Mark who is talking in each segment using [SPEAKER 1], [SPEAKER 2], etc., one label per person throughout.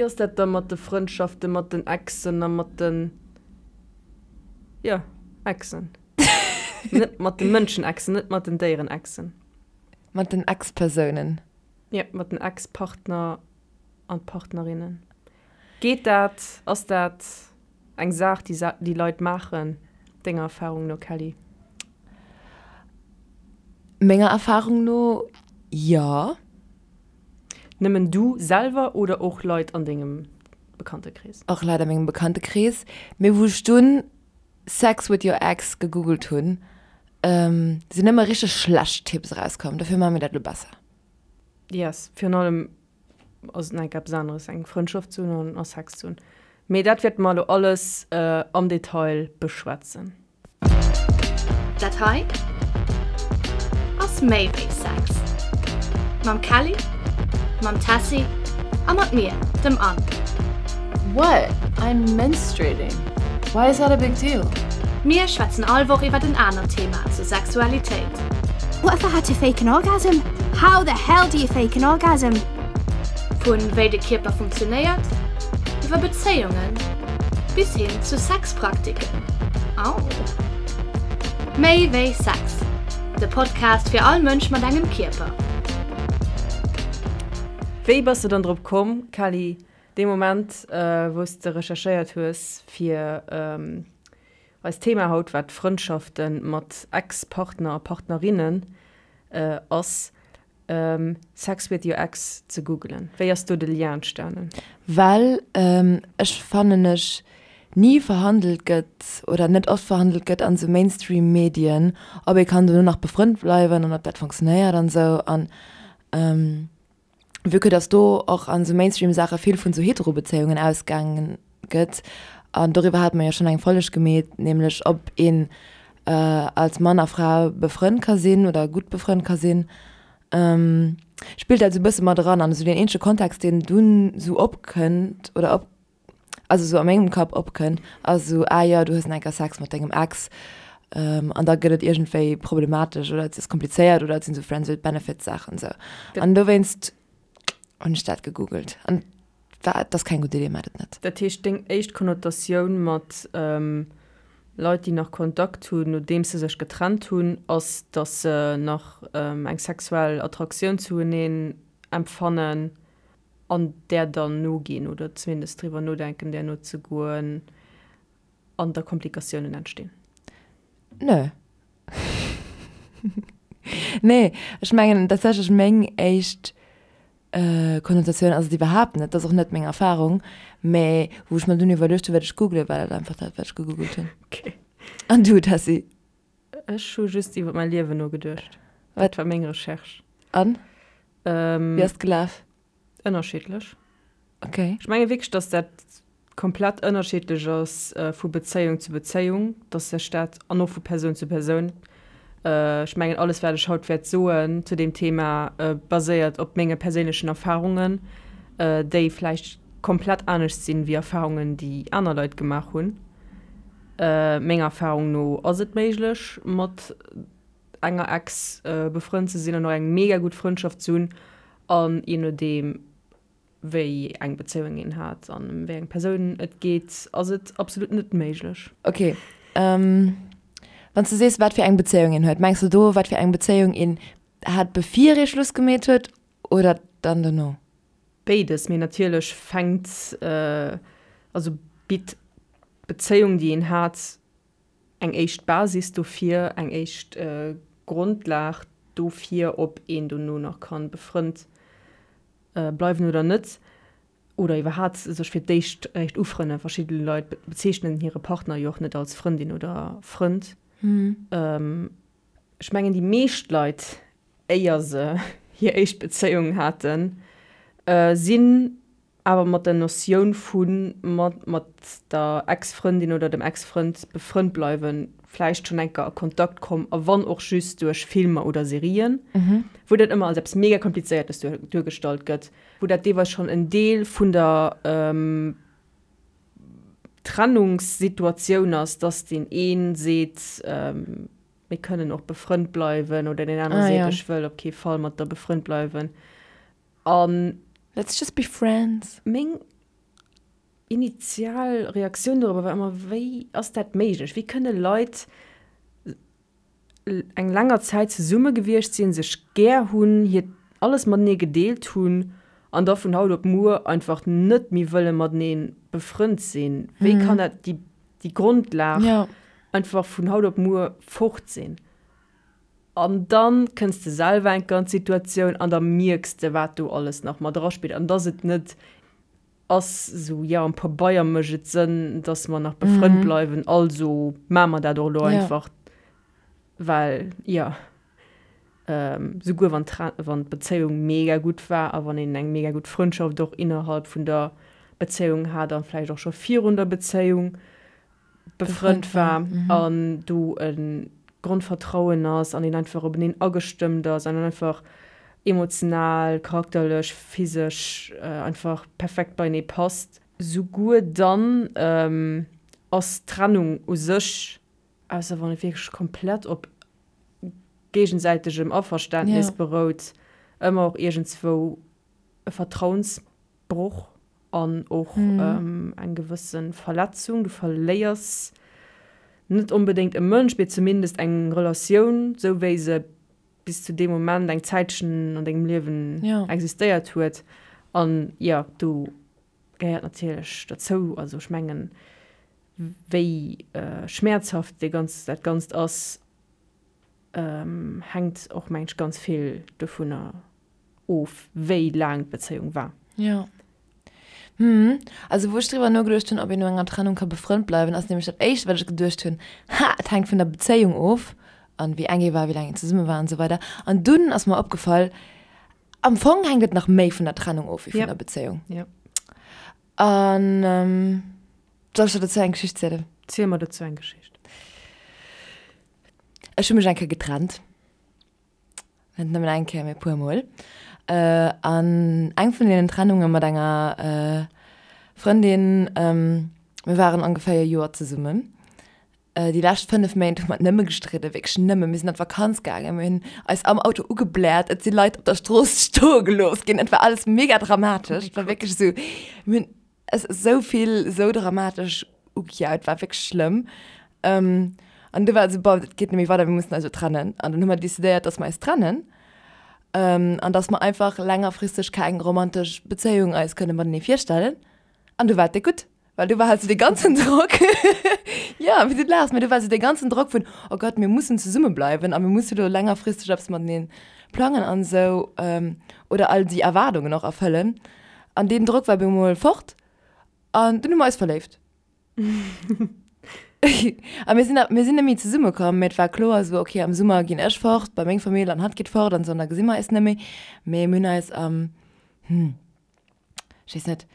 [SPEAKER 1] Wéi ass dat da mat de Frëndschafte mat den Exen a mat den, jo, Exen? Net mat de Mënschen-Exen, net mat den Déieren-Exen.
[SPEAKER 2] Mat den Ex-Persounen.
[SPEAKER 1] Jo, mat den Ex-Partner an Partnerinnen. Geet dat? Ass dat eng Saach, déi déi Leit maachen, denger Erfarung no, Kelly?
[SPEAKER 2] Menger Erfarung no, jo.
[SPEAKER 1] Nëmmen du selwer oder och Leit an dengem Bekanntekrees?
[SPEAKER 2] Och Leit a mengem Bekanntekrees. Mee wou ech dunn Sex with your ex gegoogelt hunn, sinn nëmme richteg schlecht Tipps erauskomm. Dofir maache mir dat elo besser.
[SPEAKER 1] Yes, virun allem ass et nach eppes aneres eng Frëndschaft ze hunn a Sex ze hunn. Mee dat wäerte mer elo alles am Detail beschwätzen.
[SPEAKER 3] Dat hei ass méi wéi Sex. Mam Kelly, mam Tessy a mat mir, dem Anne.
[SPEAKER 4] What? I'm menstruating. Why is that a big deal?
[SPEAKER 3] Mir schwätzen all Woch iwwert en anert Thema zur Sexualitéit.
[SPEAKER 5] What if I had to fake an orgasm? How the hell do you fake an orgasm?
[SPEAKER 3] Vun wéi de Kierper funktionéiert, iwwer Bezéiungen bis hin zu Sexpraktiken. Au! Méi wéi Sex, de Podcast fir all Mënsch mat engem Kierper.
[SPEAKER 1] Wéi bass de dann drop komm, Kelly, dee Moment wou s de recherchéiert hues fir eist Thema haut, wat Frëndschafte mat Ex-Partner a Partnerinnen ass, Sex with your ex ze googelen. Wéi ass do de Lien entstanen?
[SPEAKER 2] Well ech fannen ech ni verhandelt gëtt oder net oft verhandelt gëtt an esou Mainstream Medien, ob ee kann dono nach befrënnt bleiwen an ob dat funktionéiert an esou. An vue que dass do och an esou Mainstream Saache vill vun esou Hetero-Bezéiungen ausgaangen gëtt, an doriwwer hate mer jo schonn eng Folleg gemeet, nämlech ob een als Mann a Fra befrënnt ka sinn oder gutt befrënnt ka sinn, spillt dat esou e bësse mat eran. An esou deen eenzege Kontext, deen dunn esou opkënnt oder op, also esou a mengem Kapp opkënnt, ass esou, ah jo, du hues nach eng Kéier Sex mat dengem Ex an da gëtt et iergendwéi problematesch oder et ass komplizéiert oder et sinn esou Friends with Benefits Saachen esou. An dowéinst hunn ech dat gegoogelt an war, et ass keng gutt Idee, maacht et net.
[SPEAKER 1] Dat heescht, deng éischt Konnotatioun mat Leit, déi nach Kontakt hunn, nodeems se sech getrennt hunn, ass, datt se nach eng sexuell Attraktioun zueneen empfannen an där dann noginn oder zumindest driwwer nodenken, där nozegoen an da Komplikatiounen entstinn?
[SPEAKER 2] Nö. Nee, ech mengen tatsächlech meng éischt Konnotatioun ass et iwwerhaapt net, dat ass och net meng Erfarung, mä wou ech mer dunn iwwerluecht hunn, wat ech googelen, war dat einfach dat, wat ech gegoogelt hunn.
[SPEAKER 1] Okay.
[SPEAKER 2] An du, Tessy?
[SPEAKER 1] Ech hu just iwwer mäi Liewen nogeduecht. Dat war meng Recherche.
[SPEAKER 2] An? Wéi ass et gelaf?
[SPEAKER 1] Ënnerschiddlech.
[SPEAKER 2] Okay.
[SPEAKER 1] Ech menge wierklech, dass dat komplett ënnerschiddlech ass vu Bezéiung zu Bezéiung, dass sech dat, an och vu Persoun zu Persoun. Ech mengen, alles wat ech haut wäert soen zu deem Thema baséiert op menge perséinlechen Erfarungen, déi vläicht komplett anescht sinn wéi Erfarungen, déi aner Leit gemaach hunn. Menger Erfarung no ass et méiglech mat enger Ex befrënnt ze sinn an och eng mega gutt Frëndschaft ze hunn an je nodeem wéi eng Bezéiung een hat an ëm wéi eng Persoun et geet, ass et absolut net méiglech.
[SPEAKER 2] Ok, wann s de sees wat fir eng Bezéiung een huet, mengs de do wat fir eng Bezéiung een hat bevir ee Schluss gemeet huet oder dann dono?
[SPEAKER 1] Béides, mee natierlech fänkt, also bitt d'Bezéiung déi een hat eng éischt Basis dofir, eng éischt Grondlag dofir, ob een dono nach kann befrënnt bleiwen oder net, oder iwwerhaat sech fir d'éischt eréischt ufrënnen. Verschidde Leit bezeechnen hire Partner jo och net als Frëndin oder Frënd. Ech mengen déi meescht Leit, éier se hir éischt Bezéiung haten, sinn Awer mat der Notioun vu mat mat der Ex-Frëndin oder dem Ex-Frënd befrënnt bleiwen, vläicht schonn eng Kéier a Kontakt komm, a wann och just duerch Filmer oder Serien, wou dat ëmmer als eppes mega Komplizéiertes duergestallt gëtt, wou dat deelweis schonn en Deel vun der Trennungssituatioun ass, dass deen ee seet, mir kënnen och befrënnt bleiwen, oder deen anere seet, ech wëll op kee Fall mat der befrënnt bleiwen. An
[SPEAKER 2] Let's just be friends.
[SPEAKER 1] Meng. initial Reaktioun dorobber war ëmmer, Wéi ass dat méiglech? Wéi kënne Leit eng länger Zäit zesumme gewiescht sinn, sech gär hunn, hiert alles matenee gedeelt hunn an da vun haut op muer einfach net méi wëlle matenee befrënnt sinn? Wéi kann dat déi, déi Grondlag einfach vun haut op muer fort sinn? An dann kënns de selwer eng Kéier an d'Situatioun an da mierks de, wat do alles nach mat eraspillt an dass et net ass esou, jo, am Pabeier mécht et Sënn, dass mer nach befrënnt bleiwen, also maache mer dat och elo einfach, well, jo, souguer wann wann d'Bezéiung mega gutt war a wann een eng mega gutt Frëndschaft och innerhalb vun der Bezéiung hat a vläicht och scho virun der Bezéiung, befrënnt war an do e Grondvertrauen ass an een einfach openeen agestëmmt ass an einfach emotional, charakterlech, physesch einfach perfekt beienee passt. Souguer dann ass d'Trennung u sech, ausser wann et wierklech komplett op géigesäitegem Averständnis berout, ëmmer och iergendzwou e Vertrauensbroch an och eng gewësse Verletzung. Du verléiers net onbedéngt e Mënsch, mee zumindest eng Relatioun, sou wéi se bis zu deem Moment eng Zäitchen an dengem Liewen existéiert huet. An jo, do gehéiert natierlech dozou, also ech mengen, wéi schmäerzhaft dee ganz, dat Ganzt ass, hänkt och, mengen ech, ganz vill dovunner of, wéi laang d'Bezéiung war.
[SPEAKER 2] Jo. Hm. Also wou ech driwwer nogeduecht hunn, ob een no enger Trennung ka befrënnt bleiwen, ass nämlech dat éischt wat ech geduecht hunn, Ha, et hänkt vun der Bezéiung of an wéi eng ee war, wéi laang een zesumme war an esou weider. An dunn ass mer opgefall, am Fong hänkt et nach méi vun der Trennung of wéi vun der Bezéiung.
[SPEAKER 1] Jo.
[SPEAKER 2] An soll ech der dozou eng Geschicht zielen?
[SPEAKER 1] Ziel mer dozou eng Geschicht.
[SPEAKER 2] Ech hu mech eng Kéier getrennt. Net nëmmen eng Kéier, mee e puer Mol. An eng vun deenen Trennunge mat enger Frëndin, mir waren ongeféier e Joer zesummen. Déi lescht 5 Méint hu mer nëmme gestridden, wierklech nëmmen. Mir sinn an d'Vakanz gaangen, mir hunn eis am Auto ugebläert, et si Leit op der Strooss stoe gelooss ginn. Et war alles mega dramatesch. Et war wierklech esou, mir hunn Es ass esou vill esou dramatesch ugejaut, war wierklech schlëmm. An du war et esou, bon, et geet net méi weider, mir mussen eis elo trennen. An dann hu mer decidéiert, dass mer eis trennen an dass mer einfach längerfristeg keng romantesch Bezéiung eis kënne matenee virstellen. An du war et déck gutt, well du war halt sou dee ganzen Drock, jo, wéi du laachs, mee du war sou dee ganzen Drock vun, oh Gott, mir mussen zesumme bleiwen a mir musse lo längerfristeg eppes matenee plangen an esou oder all déi Erwaardungen och erfëllen. An deen Drock war bemol fort an dunn hu mer eis verléift. A mir sinn, mir sinn net méi zesumme komm, mee et war kloer esou, okay, am Summer ginn ech fort bei meng Famill an hatt geet fort an esou an da gesi mer eis net méi. Mee mir hunn eis am, hm, ech weess net,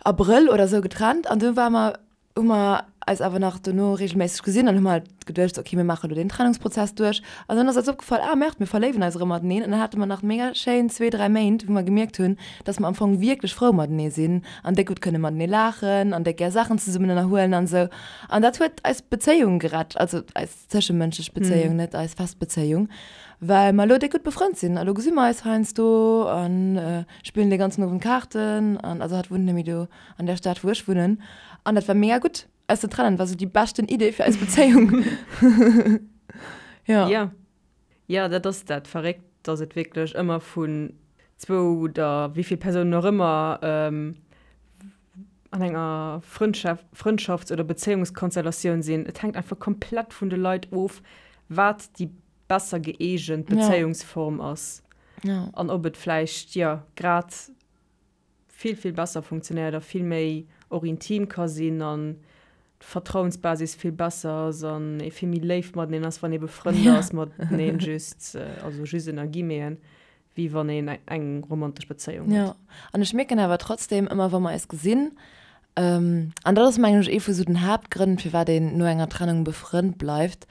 [SPEAKER 2] Abrëll oder esou getrennt an du ware mer hu mer eis awer nach dono regelméisseg gesinn an hu mer halt geduecht, okay, mir maache lo deen Trennungsprozess duerch. An dann ass eis opgefall, ah merde, mir verléiwen eis erëm mateneen. An dann hate mer nach mega schéin zwee, dräi Méint, wou mer gemierkt hunn, dass mer am Fong wierklech frou matenee sinn an déck gutt kënne matenee laachen an déck gär Saachen zesummen ënnerhuelen an esou. An dat huet eis Bezéiung gerett, also eis zëschemënschlech Bezéiung, net eis fest Bezéiung, well mer elo déck gutt befrënnt sinn. A lo gesi mer eis heiansdo a spillen dee ganzen Owend Kaarten an also hatt wunnt net méi do an der Stad wou ech wunnen an dat war mega gutt eis ze trennen, war sou déi beschten Idee fir eis Bezéiung.
[SPEAKER 1] Ja. Ja. Ja, dat ass dat Verréckt, dass et wierklech ëmmer vun zwou oder wéi vill Persounen och ëmmer an enger Frëndschaf Frëndschafts oder Bezéiungskonstellatioun sinn. Et hänkt einfach komplett vun de Leit of, wat déi besser gëeegent Bezéiungsform ass.
[SPEAKER 2] Ja.
[SPEAKER 1] An ob et vläicht, jo, grad vill, vill besser funktionéiert a vill méi och intim ka sinn an d'Vertrauensbasis vill besser ass an ee vill méi léif mateneen ass, wann ee befrënnt ass mateneen, just, also just ënner Guillemeten, wéi wann een eng romantesch Bezéiung
[SPEAKER 2] huet. Jo, an ech mierken awer trotzdem ëmmer, wa mer eis gesinn, An dat ass, mengen ech, ee vu sou den Haaptgrënn, firwat een no enger Trennung befrënnt bleift,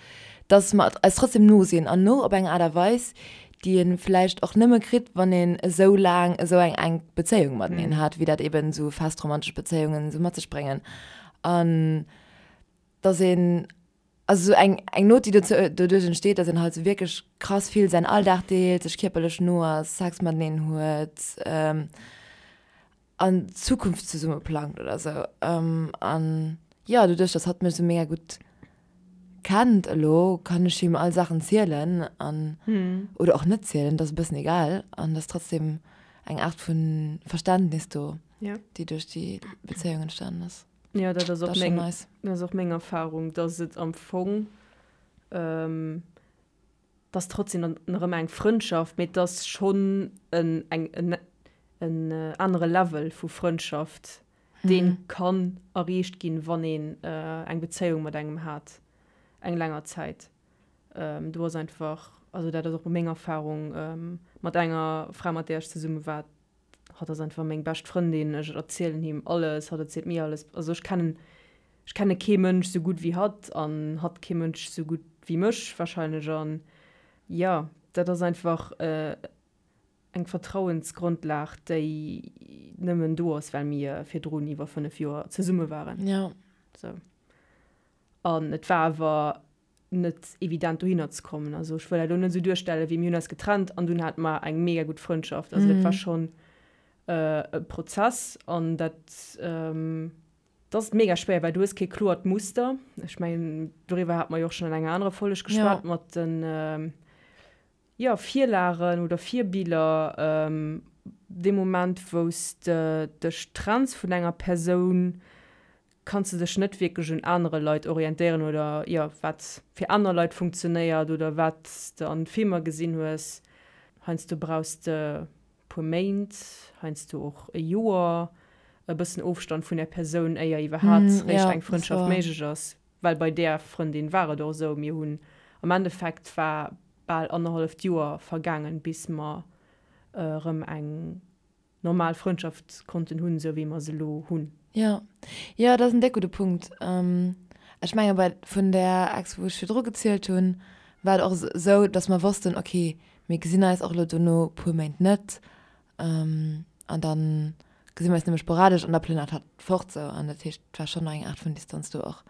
[SPEAKER 2] dass mer eis trotzdem no sinn an no op eng Aart a Weis, déi ee vläicht och nëmme kritt, wann een esou laang esou eng enk Bezéiung mateneen hat, wéi dat eben esou fest romantesch Bezéiungen esou mat sech bréngen. An dass een, also esou eng, eng Not, déi dozou, doduerch entsteet, dass een halt esou wierklech krass vill säin Alldag deelt, sech kierperlech no ass, Sex mateneen huet. An d'Zukunft zesumme plangt oder sou. An jo, doduerch, dass hatt mech sou mega gutt kennt elo, kann ech him all Saachen zielen an, oder och net zielen, dat ass e bëssen egal. An et ass trotzdem eng Aart vu Verständnis do, déi duerch déi Bezéiung entstanen ass.
[SPEAKER 1] Jo, dat ass och meng, dat ass och meng Erfarung, dass et am Fong, 't ass trotzdem dann nach ëmmer eng Frëndschaft, mee 't ass schonn en eng en en anere Level vu Frëndschaft, dee kann erreecht ginn, wann een eng Bezéiung mat engem hat eng länger Zäit. Do ass einfach, also dat ass och meng Erfarung mat enger Fra, mat där ech zesumme war, Hatt ass einfach meng bescht Frëndin, ech erzielen him alles, hatt erzielt mir alles. Also ech kennen, ech kenne kee Mënsch sou gutt wéi hatt an hatt kee Mënsch sou gutt wéi mech wahrscheinlech. An jo, dat ass einfach eng Vertrauensgrondlag, déi nëmmen do ass, well mir virdrun iwwer 5 Joer zesumme waren.
[SPEAKER 2] Jo.
[SPEAKER 1] Sou. An et war awer net evident dohinner ze kommen. Also ech wëll dat elo net esou duerstellen, wéi mir hunn eis getrennt an dunn hate mer eng mega gutt Frëndschaft. Also dat war schonn e Prozess an dat dat ass mega schwéier, well du hues kee kloert Muster. Ech mengen doriwwer hate mer jo och schonn an enger anerer Folleg geschwat mat den jo, Virlagen oder Virbiller. Dee Moment wou s de dech trenns vun enger Persoun, kanns de dech net wierklech un anere Leit orientéieren oder jo, wat fir aner Leit funktionéiert oder wat s de an Filmer gesinn hues. Heiansdo brauchs de puer Méint, heiansdo och e Joer, e bëssen Ofstand vun där Persoun, éier iwwerhaat réischt eng Frëndschaft méiglech ass. Well bei där Frëndin war et och esou, mir hunn am Endeffekt war bal annerhalleft Joer vergaangen, bis mer erëm eng normal Frëndschaft konnten hunn, esou wéi mer se elo hunn.
[SPEAKER 2] Jo, jo, dat ass en déck gudde Punkt. Ech menge bei vun där Ex, wou ech virdru gezielt hunn, war et och esou, datt mer wossten, okay, mir gesinn eis och elo dono puer Méint net an da gesi mer eis nëmme sporadesch an da plënnert hatt fort sou. An dat heescht, et war schonn nach eng Aart vun Distanz do och.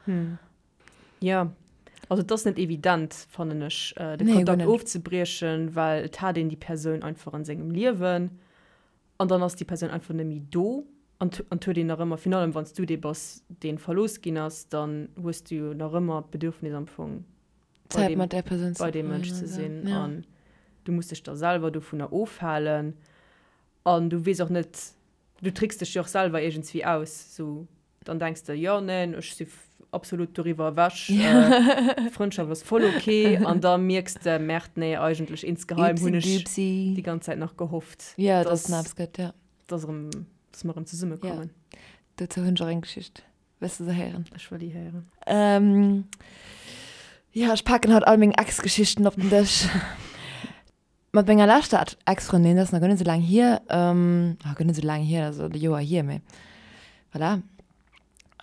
[SPEAKER 1] Jo, also et ass net evident, fannen ech, de Kontakt ofzebriechen, well et hat een déi Persoun einfach an sengem Liewen an dann ass déi Persoun einfach net méi do an et huet een nach ëmmer, virun allem wann s du dee bass, dee verlooss ginn ass, dann hues du jo nach ëmmer d'Bedürfnis am Fong bei deem, bei deem Mënsch ze sinn an du muss dech da selwer dovunner ofhalen an du weess och net, du trickst dech jo och selwer iergendswéi aus, sou Dann denks de, jo, neen, ech si absolut doriwwer ewech, Frëndschaft ass voll ok. An da mierks de, Merde, nee, eigentlech insgeheim hunn ech déi ganz Zäit nach gehofft,
[SPEAKER 2] dass
[SPEAKER 1] dass erëm, dass mer erëm zesummekommen.
[SPEAKER 2] Dozou hunn ech och eng Geschicht. Wëlls de se héieren?
[SPEAKER 1] Ech wëll déi héieren.
[SPEAKER 2] Jo, ech paken haut all meng Ex-Geschichten op den Dësch. Mat menger leschter Ex-Frëndin, dat ass nach guer net esou laang hier, ah guer net esou laang hier, dat ass e Joer hier, mee voilà,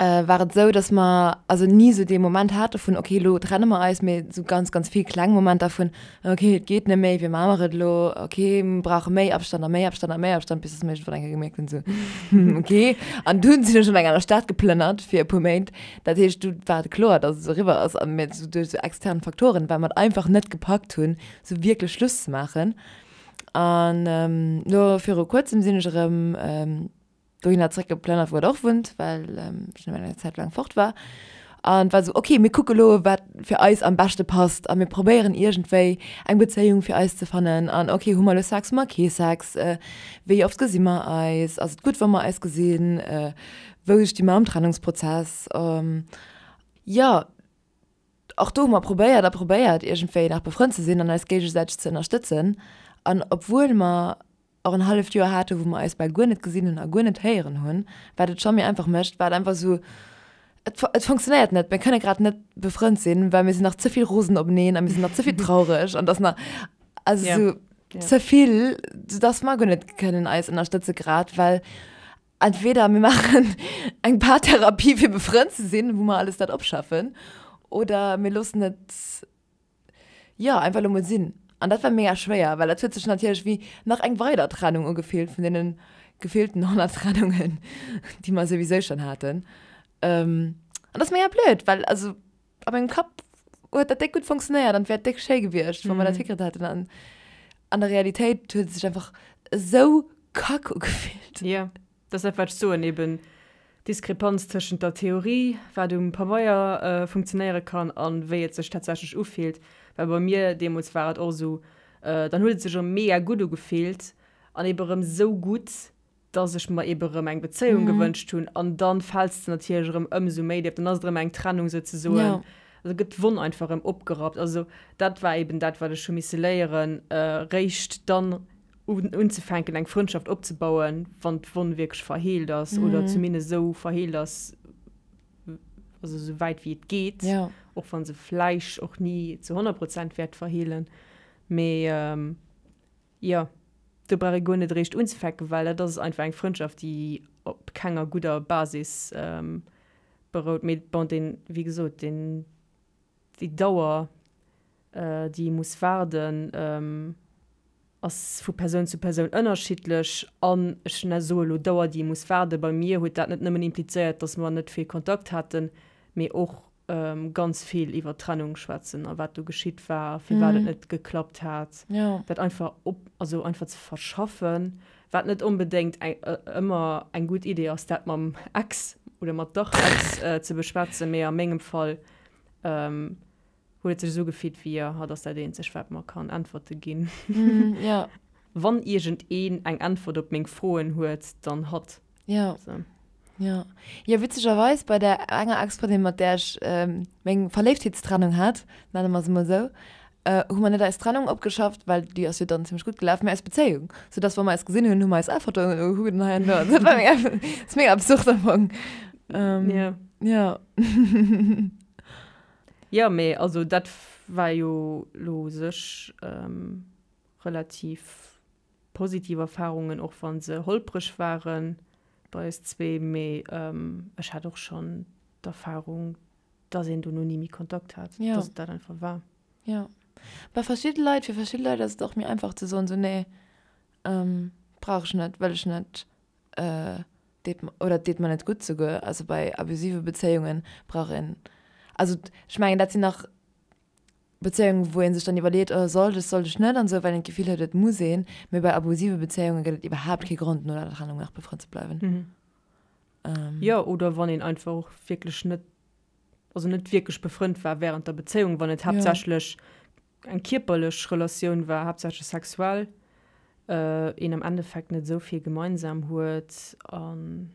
[SPEAKER 2] war et esou, dass mer also ni esou dee Moment hate vun, okay, elo trenne mer eis, mee esou ganz, ganz vill kleng Momenter vun, okay, et geet net méi, wéi maache mer et elo, okay, mir brauche méi Abstand a méi Abstand a méi Abstand, bis dass mer iergendwann eng Kéier gemierkt hunn, esou, hm, okay. An dunn sinn ech an eng aner Stad geplënnert fir e puer Méint. Dat heescht, du war et kloer, dass et eriwwer ass a mir esou duerch esou extern Faktoren, well mer et einfach net gepackt hunn, sou wierklech Schluss ze maachen. An elo viru kuerzem sinn ech erëm dohinner zeréckgeplënnert, wou et och wunnt, well ech nëmmen eng Zäit laang fort war. An et war sou, okay, mir kucke lo, wat fir eis am beschte passt a mir probéieren iergendwéi eng Bezéiung fir eis ze fannen. An okay, hu mer elo Sex, hu mer kee Sex, wéi oft gesi mer eis, ass et gutt, wa mer eis gesinn, wou sti mer am Trennungsprozess? Jo. Och do hu mer probéiert a probéiert, iergendwéi nach befrënnt ze sinn an eis géigesäiteg ze ënnerstëtzen. An obwuel mer och en halleft Joer hate wou mer eis bal guer net gesinn hunn a guer net héieren hunn, wat et scho méi einfach mécht, war et einfach esou, et et funktionéiert net, mir kënne grad net befrënnt sinn, well mir sinn nach ze vill rosen openeen a mir sinn nach ze vill traureg an et ass nach, also esou ze vill, soudass mer guer net kënnen eis ënnerstëtze grad, well Entweder mir maachen eng Paartherapie fir befrënnt ze sinn, wou mer alles dat opschaffen, oder mir loossen et, jo, einfach elo mol sinn. An dat war mega schwéier, well dat huet sech natierlech wéi nach eng weider Trennung ugefillt vun deene gefillten 100 Trennungen, déi mer souwisou schonn haten. An dat ass mega blöd, well also a mengem Kapp huet dat déck gutt funktionéiert an et wär déck schéi gewiescht, wa mer dat hikritt hätten. An an der Realitéit huet et sech einfach esou kack ugefillt.
[SPEAKER 1] Jo. Dat ass dat, wat ech soen, eben d'Diskrepanz tëschent der Theorie, wat um Pabeier funktionéiere kann, a wéi et sech tatsächlech ufillt. Well bei mir deemools war et och esou, dann huet et sech erëm mega gutt ugefillt an ebe erëm esou gutt, dass ech mer ebe erëm eng Bezéiung gewënscht hunn. An dann fäls de natierlech erëm ëmsou méi déif, dann ass et erëm eng Trennung souzesoen. Also gëtt d'Wonn einfach erëm opgerappt. Also dat war eben dat, wat ech hu misse léieren, réischt dann unzefänken eng Frëndschaft opzebauen, wann d'Wonn wierklech verheelt ass oder zumindest esou verheelt ass, also esou wäit wéi et geet, och wa se vläicht och ni zu 100 Prozent wäert verheelen. Mee jo, do brauch ee guer net eréischt unzefänken, well dat ass einfach eng Frëndschaft, déi op kenger gudder Basis berout. Mee bon, deen, wéi gesot, deen, déi Dauer, déi ee muss waarden, ass vu Persoun zu Persoun ënnerschiddlech. An ech soe lo Dauer, déi ee muss waarden, bei mir huet dat net nëmmen implizéiert, datt mer net vill Kontakt haten, mee och ganz vill iwwer d'Trennung schwätzen a wat do geschitt war a firwat et net geklappt hat. Dat einfach op, also einfach ze verschaffen, wat net onbedéngt eng, ëmmer eng gutt Idee ass, dat mam Ex oder mat der Ex ze beschwätzen, mee a mengem Fall huet et sech esou gefillt wéi, jo, hatt ass dat eenzegt, wat mer kann Äntwerte ginn.
[SPEAKER 2] Jo.
[SPEAKER 1] Wann iergendeen eng Äntwert op meng Froen huet, dann hatt.
[SPEAKER 2] Jo. So. Jo. Jo, witzegerweis bei där enger Ex-Frëndin, mat där ech meng Verléiftheetstrennung hat, nenne mer se mol esou, hu mer net eis Trennung opgeschafft, well déi ass jo dann zimmlech gutt gelaf, mä eis Bezéiung. Soudass, wa mer eis gesinn hunn, hu mer eis all Fotoen ugekuckt an hei an do. Dat war mega, ass mega absurd am Fong.
[SPEAKER 1] Jo.
[SPEAKER 2] Jo.
[SPEAKER 1] Jo, mee also dat war jo lo u sech relativ positiv Erfarungen, och wa se holpreg ware bei eis zwee. Mee ech hat och schonn d'Erfarung, dass een dono ni méi Kontakt hat, dass et dat einfach war.
[SPEAKER 2] Jo. Bei verschidde Leit, fir verschidde Leit ass et och méi einfach ze soen, sou, nee, brauch ech net, wëll ech net. deet oder deet mer net gutt souguer. Also bei abusive Bezéiunge brauch een, also ech mengen dat sinn nach Bezéiungen, wou ee sech dann iwwerleet, oh sollt ech, sollt ech net an esou, well een d'Gefill huet, et muss een. Mee bei abusive Bezéiunge gëtt et iwwerhaapt kee Grond no der Trennung nach befrënnt ze bleiwen.
[SPEAKER 1] Jo, oder wann een einfach och wierklech net, also net wierklech befrënnt war wärend der Bezéiung, wann et haaptsächlech eng kierperlech Relatioun war, haaptsächlech sexuell, een am Endeffekt net esou vill gemeinsam huet an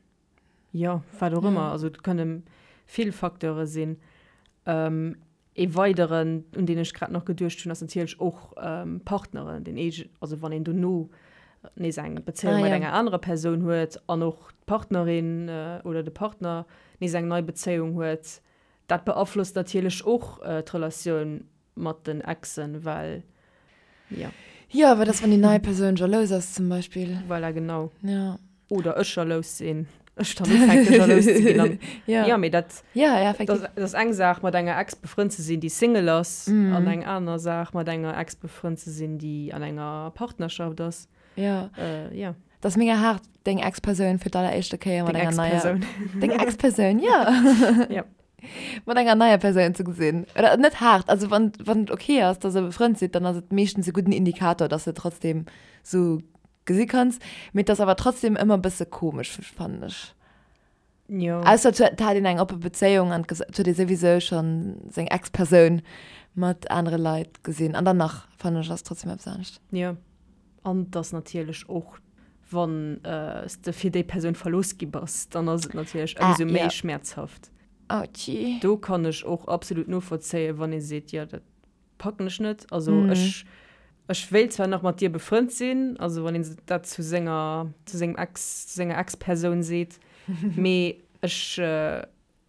[SPEAKER 1] jo, wat och ëmmer. Also et kënne vill Facteure sinn. Ee weideren, un deen ech grad nach geduecht hunn, ass natierlech och Partneren, deen eege, also wann een dono nees eng Bezéiung mat enger anerer Persoun huet an och d'Partnerin oder de Partner nees eng nei Bezéiung huet, dat beaflosst natierlech och d'Relatioun mat den Exen, well jo.
[SPEAKER 2] Jo, wat ass, wann déi nei Persoun jalous ass zum Beispill?
[SPEAKER 1] Voilà, genau.
[SPEAKER 2] Ja.
[SPEAKER 1] Oder ech jalous sinn, ech dann ufänke jalous ze ginn an.
[SPEAKER 2] Ja.
[SPEAKER 1] Jo, mee dat.
[SPEAKER 2] Ja, ja, effektiv.
[SPEAKER 1] Dat ass eng Saach, mat enger Ex befrënnt ze sinn, déi Single ass, an eng aner Saach, mat enger Ex befrënnt ze sinn, déi an enger Partnerschaft ass.
[SPEAKER 2] Ja.
[SPEAKER 1] Jo.
[SPEAKER 2] Dat ass mega haart, deng Ex-Persoun fir d'alleréischte Kéier mat
[SPEAKER 1] enger
[SPEAKER 2] neier.
[SPEAKER 1] Deng Ex-Persoun.
[SPEAKER 2] Deng Ex-Persoun, jo.
[SPEAKER 1] Ja.
[SPEAKER 2] Mat enger neier Persoun ze gesinn. Oder net haart, also wann, wann et okay ass, dass der befrënnt sidd, dann ass et meeschtens e gudden Indikator, dass de trotzdem sou gesi kanns. Mee et ass awer trotzdem ëmmer e bësse komesch, fannen ech.
[SPEAKER 1] Jo.
[SPEAKER 2] Ausser et huet, hat een eng oppe Bezéiung an et huet ee souwisou schonn seng Ex-Persoun mat anere Leit gesinn. An dann nach, fannen ech, ass trotzdem eppes anescht.
[SPEAKER 1] Jo. An et ass natierlech och, wann s de fir déi Persoun verlooss gi bass, dann ass et natierlech ëmsou méi schmäerzhaft.
[SPEAKER 2] Autschi.
[SPEAKER 1] Do kann ech och absolut novollzéien, wann ee seet, jo dat packen ech net. Also ech, ech wéilt zwar nach mat dir befrënnt sinn, also wann een dat zu senger, zu sengem Ex, zu senger Ex-Persoun seet, mee ech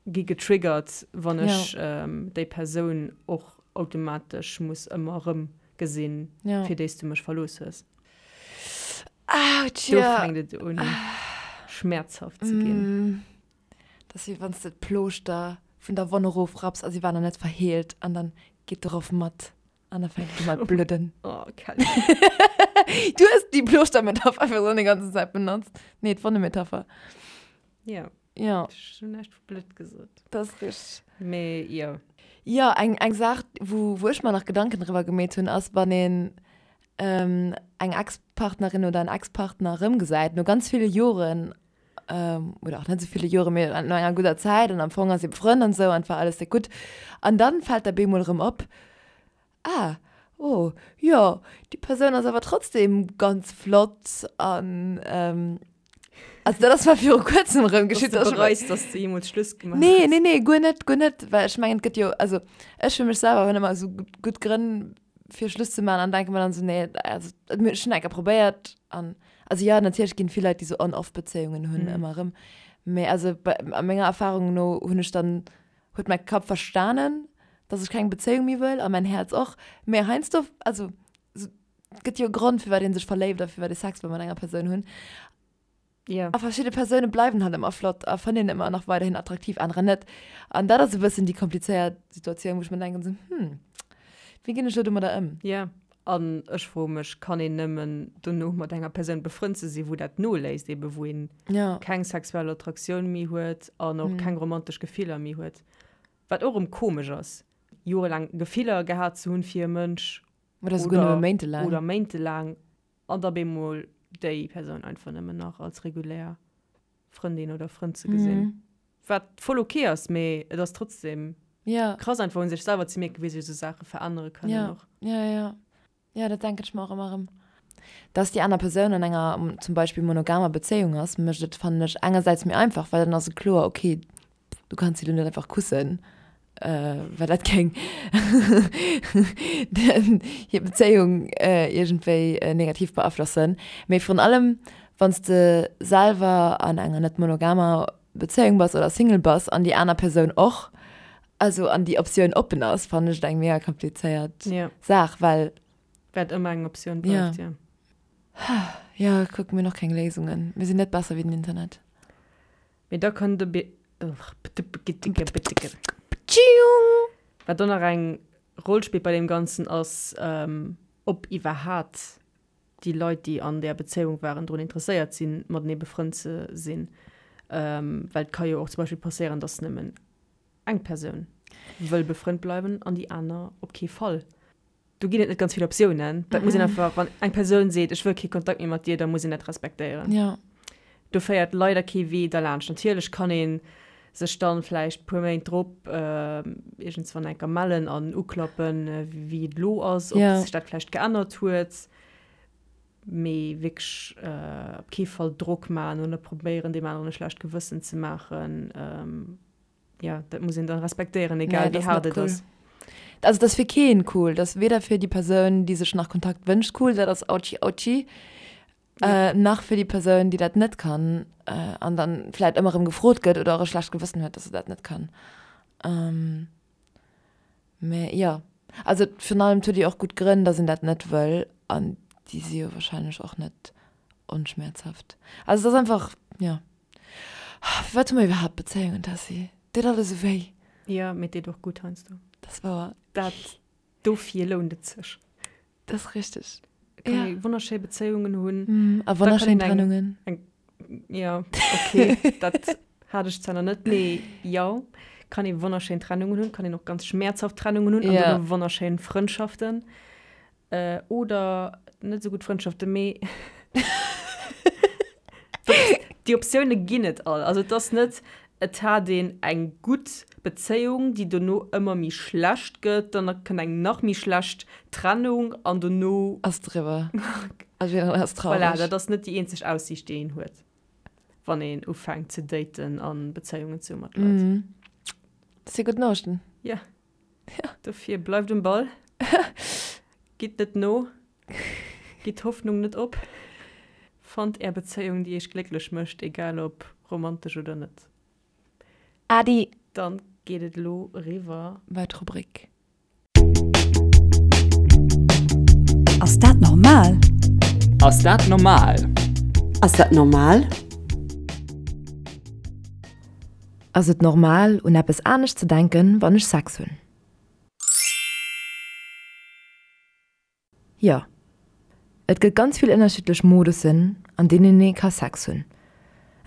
[SPEAKER 1] gi getriggert, wann ech déi Persoun och automatesch muss ëmmer erëm gesinn, fir déi s du mech verlooss hues.
[SPEAKER 2] Autsch,
[SPEAKER 1] jo. Do fänkt et un, schmäerzhaft ze ginn.
[SPEAKER 2] Dat ass wéi wann s de d'Plooschter vun der Wonn erofrapps a si war nach net verheelt an dann geet de Roff mat an da fänkt et u mat bludden.
[SPEAKER 1] Oh, Kelly.
[SPEAKER 2] Du hues déi Plooschter-Metapher einfach sou déi ganzen Zäit benotzt. Nee, d'Wonne-Metapher.
[SPEAKER 1] Jo.
[SPEAKER 2] Jo.
[SPEAKER 1] Ech hunn näischt vu Blutt gesot.
[SPEAKER 2] Dat ass richteg.
[SPEAKER 1] Mee jo.
[SPEAKER 2] Jo, eng, eng Saach, wou, wou ech mer nach Gedanken driwwer gemeet hunn, ass, wann een eng Ex-Partnerin oder en Ex-Partner erëmgesäit, no ganz ville Joren. Oder och net esou ville Joren, mee no enger gudder Zäit an am Fong ass ee befrënnt an esou an et war alles déck gutt. An dann fält der bemol erëm op, Ah, oh, jo, déi Persoun ass awer trotzdem ganz flott an also dat ass mer viru kuerzem erëm
[SPEAKER 1] geschitt. Dass du bereis, dass du jeemools Schluss
[SPEAKER 2] gemaach hues? Nee, nee, nee, guer net, guer net, well ech mengen, et gëtt jo, also ech fir mech selwer hunn ëmmer esou gutt Grënn fir Schluss ze maachen an denke mer dann esou, nee, also ech hunn eng Kéier probéiert an also jo, natierlech ginn et vill Leit, déi esou On-Off-Bezéiungen hunn ëmmer erëm, mee also bei a menger Erfahrung no hunn ech dann huet mäi Kapp verstanen, dass ech keng Bezéiung méi wëll a mäin Häerz och. Mee heiansdo, also et gëtt jo e Grond, firwat ee sech verléift a firwat ee Sex wëll mat enger Persoun hunn.
[SPEAKER 1] Ja.
[SPEAKER 2] A verschidde Persoune bleiwen halt ëmmer flott a fënnt een ëmmer nach weiderhin attraktiv, anerer net. An dat ass e bëssen déi komplizéiert Situatioun, wou ech mer denken esou, hm, wéi ginn ech elo domadder ëm?
[SPEAKER 1] Ja. An ech froe mech, kann een nëmmen dono mat enger Persoun befrënnt ze sinn, wou dat noléisst, ebe wou een keng sexuell Attraktioun méi huet an och keng romantesch Gefiller méi huet? Wat och erëm komesch ass, jorelaang Gefiller gehat ze hunn fir e Mënsch
[SPEAKER 2] Oder souguer nëmme méintelaang.
[SPEAKER 1] Oder méintelaang an da bemol déi Persoun einfach nëmmen nach als regulär Frëndin oder Frënd ze gesinn. Wat voll ok ass, mee et ass trotzdem krass einfach un sech selwer ze mierken, wéi sech esou Saache verännere kënnen
[SPEAKER 2] och. Jo, jo, jo. Jo, dat denken ech mer och ëmmer erëm. Dass déi aner Persoun an enger zum Beispill monogamer Bezéiung ass, mécht et, fannen ech, engersäits méi einfach, well dann ass et kloer, ok, du kanns si lo net einfach kussen, well dat géing hir Bezéiung iergendwéi negativ beaflossen. Mee virun allem, wann s de selwer an enger net monogamer Bezéiung bass oder Single bass an déi aner Persoun och, also an déi Optioun oppen ass, fannen ech et eng mega komplizéiert Saach, well.
[SPEAKER 1] Wat ëmmer eng Optioun bleift, jo.
[SPEAKER 2] Jo, kuck, mir hunn och keng Léisungen. Mir sinn net besser wéi den Internet.
[SPEAKER 1] Mee da kënnt e Wat och nach eng Roll spillt bei deem Ganzen ass, ob iwwerhaat déi Leit, déi an där Bezéiung waren, drun interesséiert sinn, matenee befrënnt ze sinn. Well et ka jo och zum Beispill passéieren, datt nëmmen eng Persoun wëll befrënnt bleiwen an déi aner op kee Fall. Do ginn et net ganz vill Optiounen. Dat muss een einfach, wann eng Persoun seet, ech wëll kee Kontakt méi mat dir, da muss een dat respektéieren.
[SPEAKER 2] Ja.
[SPEAKER 1] Do féiert leider kee Wee derlaanscht. Natierlech kann ee sech dann vläicht puer Méint drop iergendswann enker mellen an uklappen, wéi et elo ass, ob sech dat vläicht geännert huet. Mee wierklech op kee Fall Drock maachen oder probéieren, deem aneren e schlecht Gewëssen ze maachen. Ja, dat muss een dann respektéieren, egal wéi haart et ass.
[SPEAKER 2] Also dat ass fir keen cool. Dat ass weder fir déi Persoun, déi sech nach Kontakt wënscht cool, dat ass ouchi ouchi, nach fir déi Persoun, déi dat net kann an dann vläit ëmmer erëm gefrot gëtt oder och e schlecht Gewëssen huet, dass se dat net kann. Mä jo, also virun allem et huet jo och gutt Grënn, dass een dat net wëll an déi si jo wahrscheinlech och net onschmäerzhaft. Also et ass einfach, jo. Firwat hu mer iwwerhaapt Bezéiungen, Tessy? Deet alles esou wéi.
[SPEAKER 1] Jo, mee et deet och gutt heiansdo.
[SPEAKER 2] Dat ass wouer.
[SPEAKER 1] Dat, dofir lount et sech.
[SPEAKER 2] Dat ass richteg.
[SPEAKER 1] Et kann ee wonnerschéi Bezéiungen hunn.
[SPEAKER 2] A wonnerschéin Trennungen.
[SPEAKER 1] Eng, jo, okay, dat hat ech zwar nach net, mee jo, kann ee wonnerschéin Trennungen hunn, kann een och ganz schmäerzhaft Trennungen hunn an dann och wonnerschéin Frëndschaften. Oder net esou gutt Frëndschaften, mee déi Optioune ginn et all. Also et ass net, et hat een eng gutt Bezéiung, déi dono ëmmer méi schlecht gëtt, dann kënnt eng nach méi schlecht Trennung an dono.
[SPEAKER 2] Ass et eriwwer a jiddereen ass
[SPEAKER 1] traureg. Voilà, dat ass net déi eenzeg Aussiicht, déi een huet, wann een ufänkt ze daten a Bezéiungen ze hu mat
[SPEAKER 2] Leit. Dat si gutt Noriichten.
[SPEAKER 1] Jo. Dofir bleift um Ball, gitt net no, gitt d'Hoffnung net op, fannt är Bezéiung, déi iech glécklech mécht, egal ob romantesch oder net.
[SPEAKER 2] Adi!
[SPEAKER 1] Dann geet et elo eriwwer.
[SPEAKER 2] Bei d'Rubrik.
[SPEAKER 6] Ass dat normal?
[SPEAKER 7] Ass dat normal?
[SPEAKER 6] Ass dat normal?
[SPEAKER 2] Ass et normal, un eppes anescht ze denken, wann ech Sex hunn? Jo. Et gëtt ganz vill ënnerschiddlech Modussen, an deenen ee ka Sex hunn.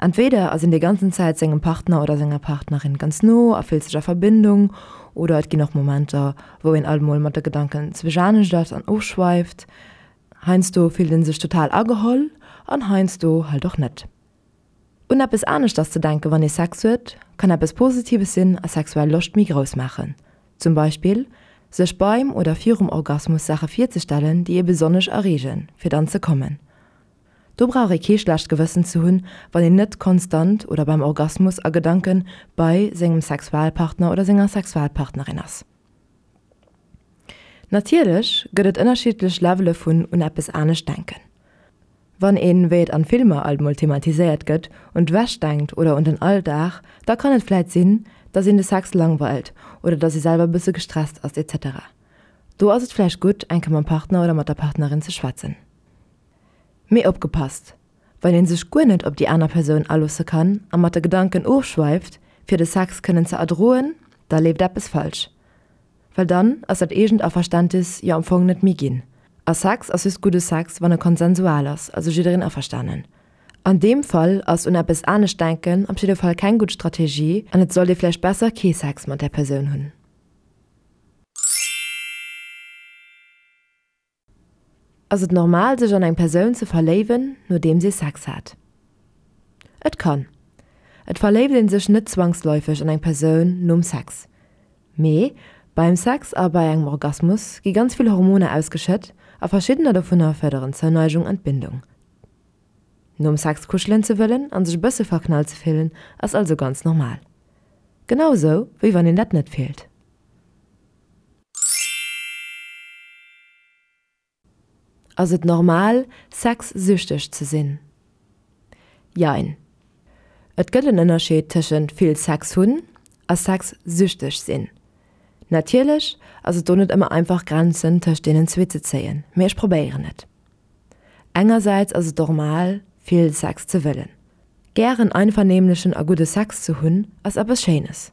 [SPEAKER 2] Entweder ass een déi ganzen Zäit sengem Partner oder senger Partnerin ganz no a fillt sech a Verbindung, oder et ginn och Momenter, wou een alt mol mat de Gedanken zwech anescht ass an ofschweift. Heiansdo fillt ee sech total ageholl an heiansdo halt och net. Un eppes aneschters ze denken, wann ee Sex huet, kann eppes Positives sinn a sexuell Loscht méi grouss maachen. Zum Beispill sech beim oder virum Orgasmus Saache virzestellen, déi ee besonnesch erreegen, fir dann ze kommen. Do brauch ee kee schlecht Gewëssen ze hunn, wann een net konstant oder beim Orgasmus a Gedanke bei sengem Sexualpartner oder senger Sexualpartnerin ass. Natierlech gëtt et ënnerschiddlech Levele vun un eppes anescht denken. Wann een, wéi et an Filmer alt mol thematiséiert gëtt, un d'Wäsch denkt oder un den Alldag, da kann et vläit sinn, dass een de Sex langweilt oder dass ee selwer bësse gestresst ass etc. Do ass et vläicht gutt, eng Kéier mam Partner oder mat der Partnerin ze schwätzen. Mee opgepasst, Wann een sech guer net op déi aner Persoun aloosse kann a mat de Gedanken ofschweift, fir de Sex kënnen ze erdroen, da leeft eppes falsch. Well dann ass dat eegent Averständis jo am Fong net méi ginn. A Sex ass just gudde Sex, wann e konsensual ass, also jiddereen averstanen. An deem Fall ass un eppes anescht denken op jidde Fall keng gutt Strategie an et sollt ee vläicht besser kee Sex mat där Persoun hunn. Ass et normal sech an eng Persoun ze verléiwen nodeems ee Sex hat? Et kann. Et verléift een sech net zwangsläufeg an eng Persoun nom Sex. Mee beim Sex a bei engem Orgasmus gi ganz vill Hormoner ausgeschëtt a verschiddener dovunner fërderen d'Zouneigung an d'Bindung. Nom Sex kuschelen ze wëllen an sech e bësse verknallt ze fillen ass also ganz normal. Genau esou wéi wann een dat net fillt. Ass et normal, sexsüchteg ze sinn? Jein. Et gëtt en Ënnerscheed tëschent vill Sex hunn a sexsüchteg sinn. Natierlech ass et do net ëmmer einfach Grenzen tëscht deenen zwee ze zéien, mee ech probéieren et. Engersäits ass et normal, vill Sex ze wëllen. Gären einvernehmlechen a gudde Sex ze hunn ass eppes Schéines.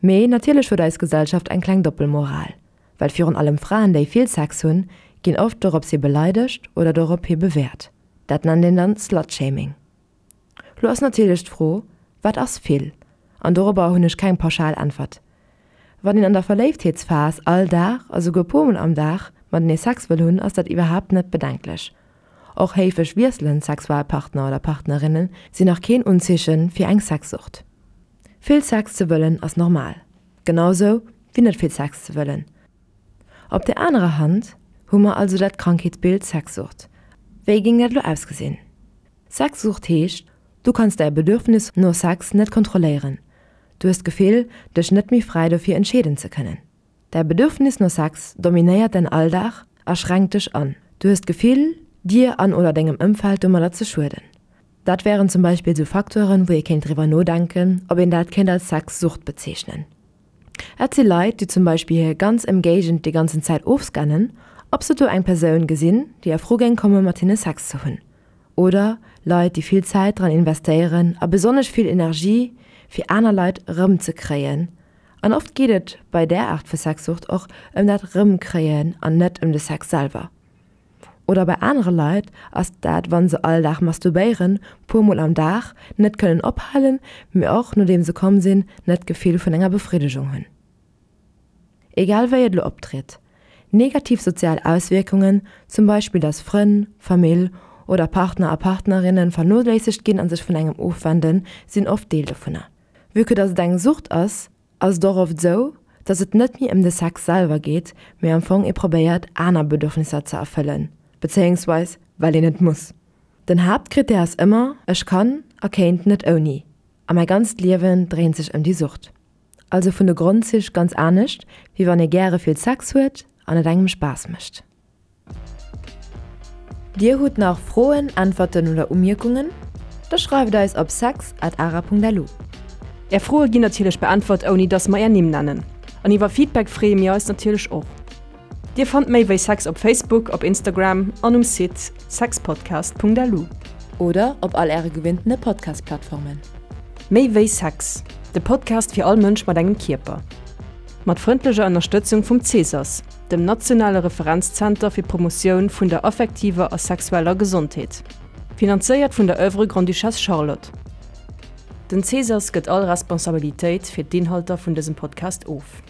[SPEAKER 2] Mee natierlech huet eis Gesellschaft eng kleng Doppelmoral, well virun allem Fraen déi vill Sex hunn, ginn oft dorops hi beleidegt oder dorop hi bewäert. Dat nennt een dann Slutshaming. Lo ass natierlech d'Fro, wat ass vill? An dorobber hunn ech keng pauschal Äntwert. Wann een an der Verléiftheetsphas all Dag a souguer puer mol am Dag matenee Sex wëll hunn, ass dat iwwerhaapt net bedenklech. Och héifeg wiesselend Sexualpartner oder Partnerinne sinn nach keen Unzeeche fir eng Sexsucht. Vill Sex ze wëllen ass normal, genau sou wéi net vill Sex ze wëllen. Op der anerer Hand hu mer also dat Krankheetsbild Sexsucht. Wéi géing dat elo ausgesinn? Sexsucht heescht, du kanns däi Bedürfnis no Sex net kontrolléieren, du hues d'Gefill, dech net méi fräi dofir entscheeden ze kënnen. Däi Bedürfnis no Sex dominéiert däin Alldag a schränkt dech an. Du hues d'Gefill, dir an oder dengem Ëmfeld domadder ze schueden. Dat wären zum Beispill sou Facteuren, wou ee kéint driwwer nodenken, ob een dat kéint als Sexsucht bezeechnen. Et si Leit, déi zum Beispill hir ganz Ëmgéigend déi ganzen Zäit ofscannen, ob se do eng Persoun gesinn, déi a Fro géing komme mat hinne Sex ze hunn. Oder Leit, déi vill Zäit dran investéieren a besonnesch vill Energie, fir aner Leit erëmzekréien. An oft geet et bei där Aart vu Sexsucht och ëm dat Erëmkréien an net ëm de Sex selwer. Oder bei anere Leit ass dat wann se all Dag masturbéieren, puer mol am Dag, net kënnen ophalen, mee och nodeem se komm sinn, net d'Gefill vun enger Befriddegung hunn. Egal wéi et elo optritt, negativ sozial Auswierkungen, zum Beispill dass Frënn, Famill oder Partner a Partnerinne vernoléissegt ginn a sech vun engem ofwenden, sinn oft Deel dovunner. Vue que dass et eng Sucht ass, ass et och oft esou, dass et net méi ëm de Sex selwer geet, mee am Fong ee probéiert aner Bedürfnisser ze erfëllen, bezéiungsweis well een et muss. Den Haaptkrittär ass ëmmer, ech kann a kéint net ouni a mäi ganzt Liewen dréint sech ëm déi Sucht. Also vun de Grondzich ganz anescht, wéi wann ee gäre vill Sex huet an et engem Spaass mécht. Dir hutt nach Froen, Äntwerten oder Umierkungen? Da schreift eis op sex at ara.lu.
[SPEAKER 1] Är Froe ginn natierlech beäntwert ouni dass mer är Nimm nennen. An iwwer Feedback freeë mir eis natierlech och. Dir fannt méi wéi Sex op Facebook, op Instagram an um Site sexpodcast.lu.
[SPEAKER 2] Oder op all äre gewinntene Podcast-Plattformen.
[SPEAKER 1] Méi wéi Sex, de Podcast fir all Mënsch mat engem Kierper. Mat frëndlecher Ënnerstëtzung vum Cesas. Dem nationale Referenzzenter fir d'Promotioun vun der affektiver a sexueller Gesondheet. Finanzéiert vun der Oeuvre Grande-Duchesse Charlotte. Den Cesas gëtt all Responsabilitéit fir d'Inhalter vun dësem Podcast of.